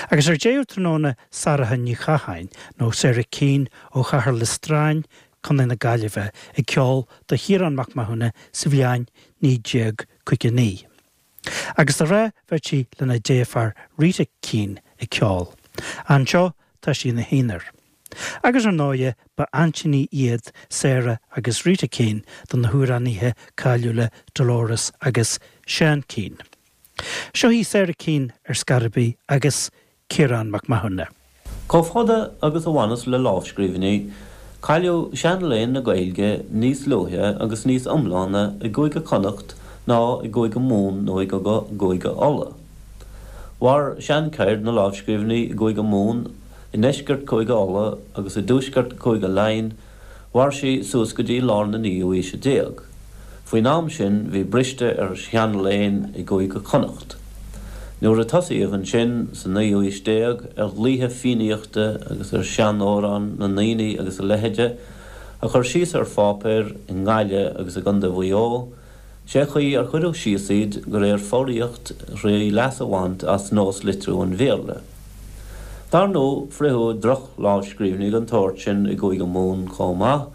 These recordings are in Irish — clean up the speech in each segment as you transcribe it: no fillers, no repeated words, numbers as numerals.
Agus ar deireadh tráthnóna Sorcha Ní Chatháin, nó Sarah Keane ó Chathair Liostrán, Co. na Gaillimhe, ag ceol do Chiarán Mac Mathúna sa bhliain 1959. Agus de ghnáth bheadh sí lena deirfiúr Rita Keane ag ceol. Anseo tá sí ina haonar. Agus ar ndóighe ba aintíní iad Sarah agus Rita Keane do na hamhránaithe cáiliúla Dolores agus Seán Keane. Seo í Sarah Keane ar scor ar bith agus Ciarán Mac Mathúna. Chomh fada agus a bhaineas le lámhscríbhinní, cailleadh seanléann na Gaeilge níos luaithe agus níos iomláine i gCúige Chonnacht ná i gCúige Mumhan nó i gCúige Uladh. Mhair seancheird na lámhscríbhinní i gCúige Mumhan, i ndeisceart Chúige Uladh agus i dtuaisceart Chúige Laighean, Mhair sí suas go dtí lár na naoú haoise déag. Faoin am sin bhí briste ar sheanléann i gCúige Chonnacht. Nuair a tosaíodh ansin, sa naoú haois déag, ar dhlaoithe Fiannaíochta agus ar sheanamhráin na ndaoine agus a leithide a chur síos ar pháipéar i nGaillimh agus i gContae Mhaigh Eo, Sé chaoi ar cuireadh síos iad de réir foghraíocht thrí leas a bhaint as nós litriú an Bhéarla. Dar ndóigh, fritheadh droch-lámhscríbhinní den tsórt sin i gCúige Mumhan chomh maith,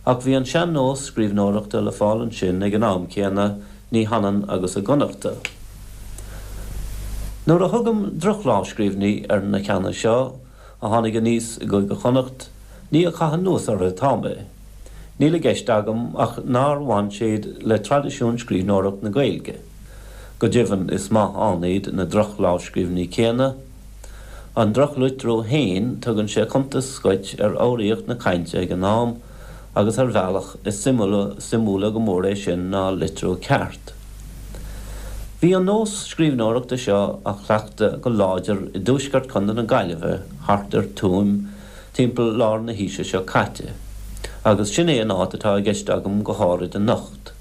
ach bhí an sean-nós scríbhneoireachta le fáil ansin ag an am céanna, ní hionann agus i gConnachta. Nuair a thugaim droch-lámhscríbhinní ar na ceanna seo, a tháinig aníos i gCúige Chonnacht, ní ag caitheamh anuas orthu atá mé. Níl i gceist agam ach nár bhain siad le traidisiún scríbhneoireacht na Gaeilge. Go deimhin is maith ann iad na droch-lámhscríbhinní céanna. An drochlitriú féin, tugann sé cuntas dhuit ar fhoghraíocht na cainte ag an am, agus ar bhealach, is suimiúla go mór é sin ná litriú ceart. Bhí an nós scríbhneoireachta seo á chleachtadh go láidir i dtuaisceart Chontae na Gaillimhe thart ar Tuaim timpeall lár na haoise seo caite, agus sin é an áit atá i gceist agam go háirid anocht.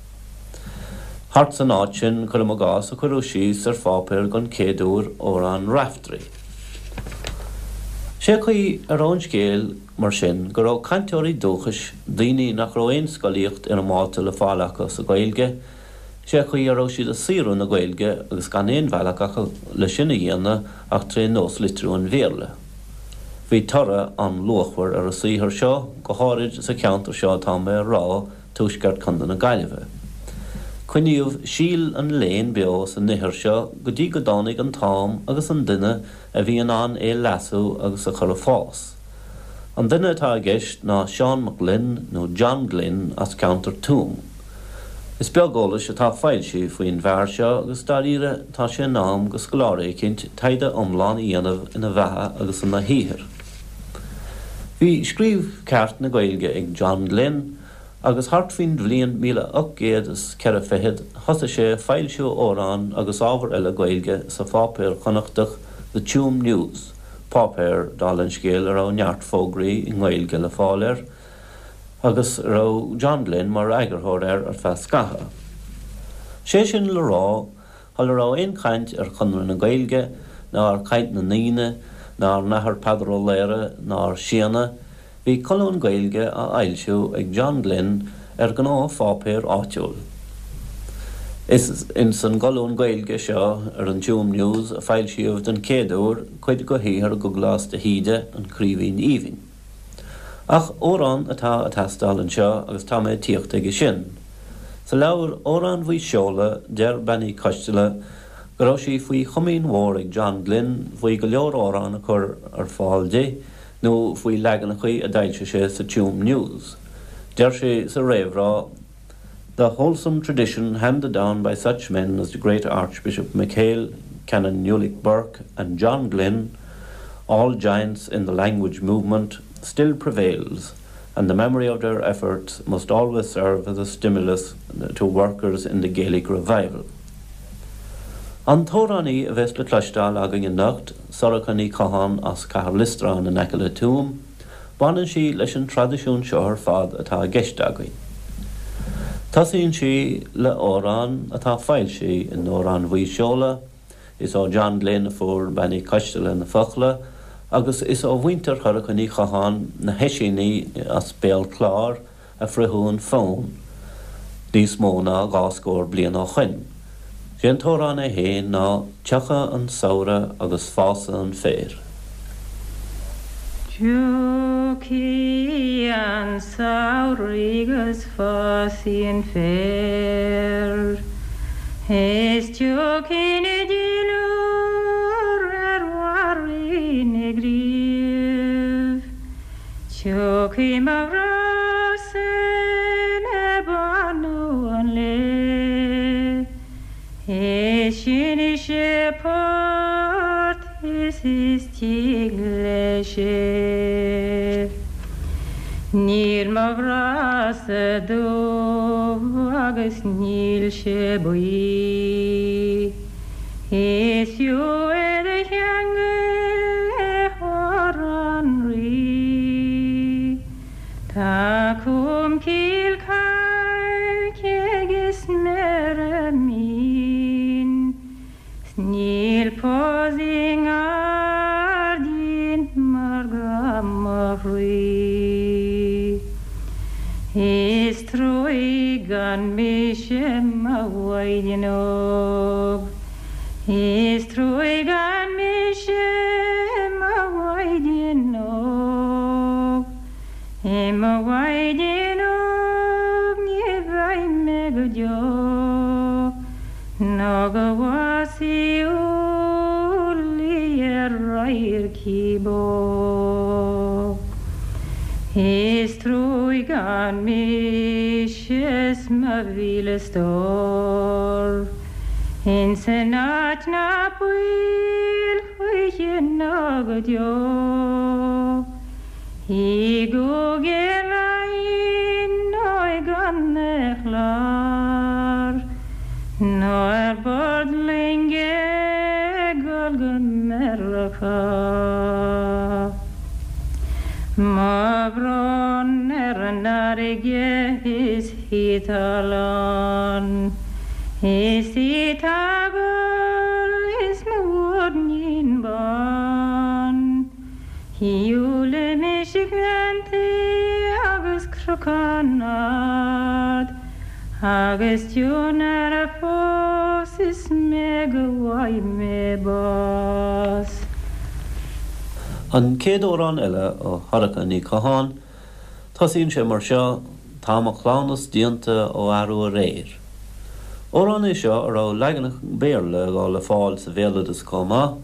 Thart san áit sin, cuirim i gcás, a cuireadh síos ar pháipéar don chéad uair Amhrán Raiftearaí. Sé chaoi a raibh an scéal, mar sin, go raibh cainteoirí dúchais, daoine nach raibh aon scolaíocht fhoirmeálta le fáil acu sa Ghaeilge, sé chaoi a raibh siad ag saothrú na Gaeilge agus gan aon bhealach acu le sin a dhéanamh ach tré nós-litriú an Bhéarla. Bhí toradh an-luachmhar ar an saothar seo, go háirid sa cheantar seo atá mé a rá, tuaisceart Chontae na Gaillimhe. Coinníodh síol an léinn beo san ithir seo go dtí go dtáinig an t-am agus an duine a bhí in ann é leasú agus a chur ag fás. An duine atá i gceist ná Seán Mac Gloinn nó John Glynn as ceantar Tuaim. Is beag eolais atá foilsithe faoin bhfear seo agus dáiríre tá sé in am go scoláire eicínt taighde iomlán a dhéanamh ina bheatha agus ina shaothar. Bhí scríobh ceart na Gaeilge ag John Glynn agus thart faoin bhliain 1804 fichead thosaigh sé ag foilsiú amhrán agus ábhar eile Gaeilge sa pháipéar Connachtach The Tuam News, páipéar, dála an scéil, a raibh neart fógraí i nGaeilge le fáil air. agus a raibh John Glynn mar eagarthóir air ar feadh scaithimh. Sé sin le rá, shula raibh aon chaint ar Chonradh na Gaeilge, ná ar Chaint na nDaoine, ná ar an Athair Peadar Ó Laoghaire, ná ar Séanna, bhí colún Gaeilge á fhoilsiú ag John Glynn ar ghnáthpháipéar áitiúil. Is ins an gcolún Gaeilge seo ar an Tuam News a foilsíodh den chéad uair cuid de shaothar Dhubhghlas de hÍde, An Craoibhín Aoibhinn. Ach amhrán atá ag teastáil anseo agus tá mé ag tíocht aige sin. Sa leabhar Amhráin Mhaigh Seola deir Bean Uí Choisteala go raibh sí faoi chomaoin mhór ag John Glynn faoi go leor amhrán a chur ar fáil di nó faoi leaganachaí a d'fhoilsigh sé sa Tuam News. Deir sí sa réamhrá, The wholesome tradition handed down by such men as the great Archbishop MacHale, Canon Ulick Burke and John Glynn, all giants in the language movement, still prevails, and the memory of their efforts must always serve as a stimulus to workers in the Gaelic revival. An t-amhránaí a bheas le cloisteáil againn anocht, Sorcha Ní Chatháin as Cathair Liostráin in aice le Tuaim, Baineann sí leis an traidisiún seo ar fad atá i gceist againn. Tosaíonn sí le amhrán atá foilsithe in Amhráin Mhaigh Seola, is ó John Glynn a fuair Bean Uí Choisteala na focla agus is ó mhuintir Shorcha Ní Chatháin, na hOisíní as Béal Cláir, a fritheadh an fonn níos mó ná dhá scór bliain ó shoin. Sé an t-amhrán é féin ná Tiocfaidh an Samhradh agus Fásfaidh an Féar. Tiocfaidh an samhradh agus fásfaidh an féar, Is tiocfaidh na duilliúr ar bharraí na gcraobh. Tiocfaidh mo ghrá-sa le bánú an lae, Is seinnfidh sé port is is tig leis é. Níl mo ghrá-sa dubh agus níl sé buí. Is fiú é do cheangal le hór an Rí. Tá colmcille cailce agus méara mín, 's níl pus i ngairdín mar grá mo chroí. Is truaigh gan mise mo mhaighdean óg, Is truaigh gan mise mo mhaighdean óg, I mo mhaighdean óg ní bheidh mé go deo, Nó go bhfásfaidh úllaí ar radharc bó. Is truaigh gan mise 's mo mhíle stór. Ins an áit ná baol choíche ná go deo. I gCúige Laighean nó i gContae Chláir, nó ar bord loinge ag dul go Meiriceá. Mo bhrón ar an fharraige is í tá lán, is í tá ag gol is mo mhuirnín bán. Shiúil mise gleanntaí agus cnocán ard, agus tionar fós is mé go bhfaighidh mé bás. An chéad amhrán eile ó Shorcha Ní Chatháin, tosaíonn sé mar seo, Tá mo chleamhnas déanta ó arú aréir. Amhrán é seo a raibh leaganacha Béarla dhó le fáil sa bhéaloideas chomh maith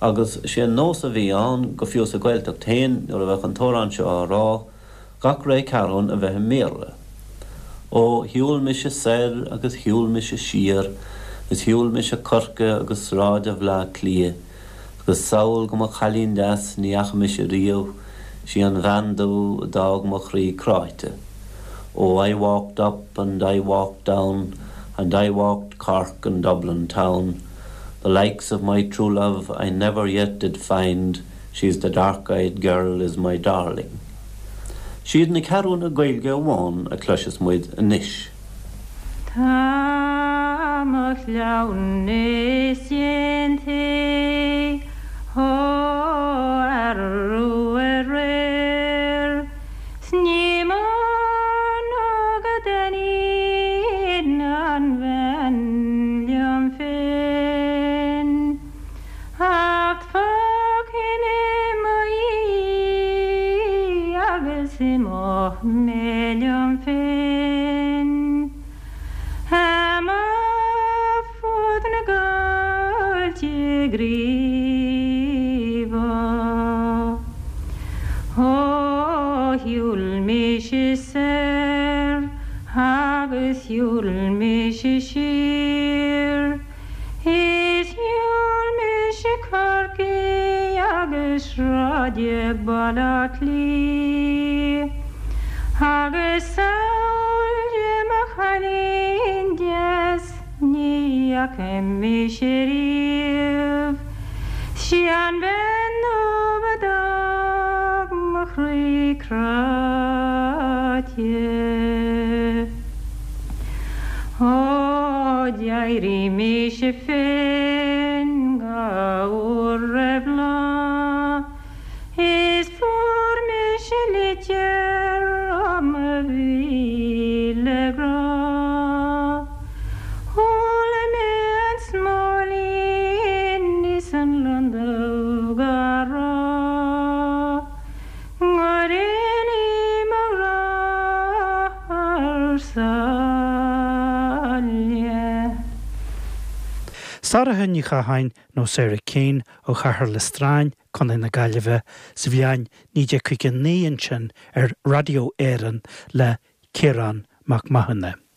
agus sé an nós a bhí ann, go fiú sa Ghaeltacht féin, nuair a bheadh an t-amhrán seo á rá, gach ré ceathrún a bheith i mBéarla. Ó, shiúil mise soir agus shiúil mise siar, is shiúil mise Corcaigh agus sráide Bhleá Cliath, agus sall go mo chailín deas ní fhaca mise riamh, sí an bhean dubh a d'fhág mo chroí cráite. Oh, I walked up and I walked down, and I walked Cork and Dublin town, the likes of my true love I never yet did find, She's the dark-eyed girl is my darling. Siad na ceathrúna Gaeilge amháin a chloisfeas muid anois. Tá mo chleamhnas déanta ó arú aréir 's ní mó ná go dtaitníonn an bhean liom féin. Acht fágfaidh mé mo dhiaidh agus imeoidh mé liom féin. Amach fud na gcoillte gríobha. Ó shiúil mise soir agus shiúil mise siar. Is shiúil mise Corcaigh agus sráide Bhaile Átha Cliath agus sall de mo chailín deas ní fhaca mise riamh 'Sí an bhean dubh a d'fhág mo chroí cráite. Ó d'éirigh mise féin dhá uair roimh lá is fuair mise litir ó mo mhíle grá. Chuala mé an. Sarah Ní Chatháin nó Sarah Keane ó Chathair Loistreáin, Co. na Gaillimhe, sa bhliain 1959 ansin ar Raidió Éireann le Ciarán Mac Mathúna.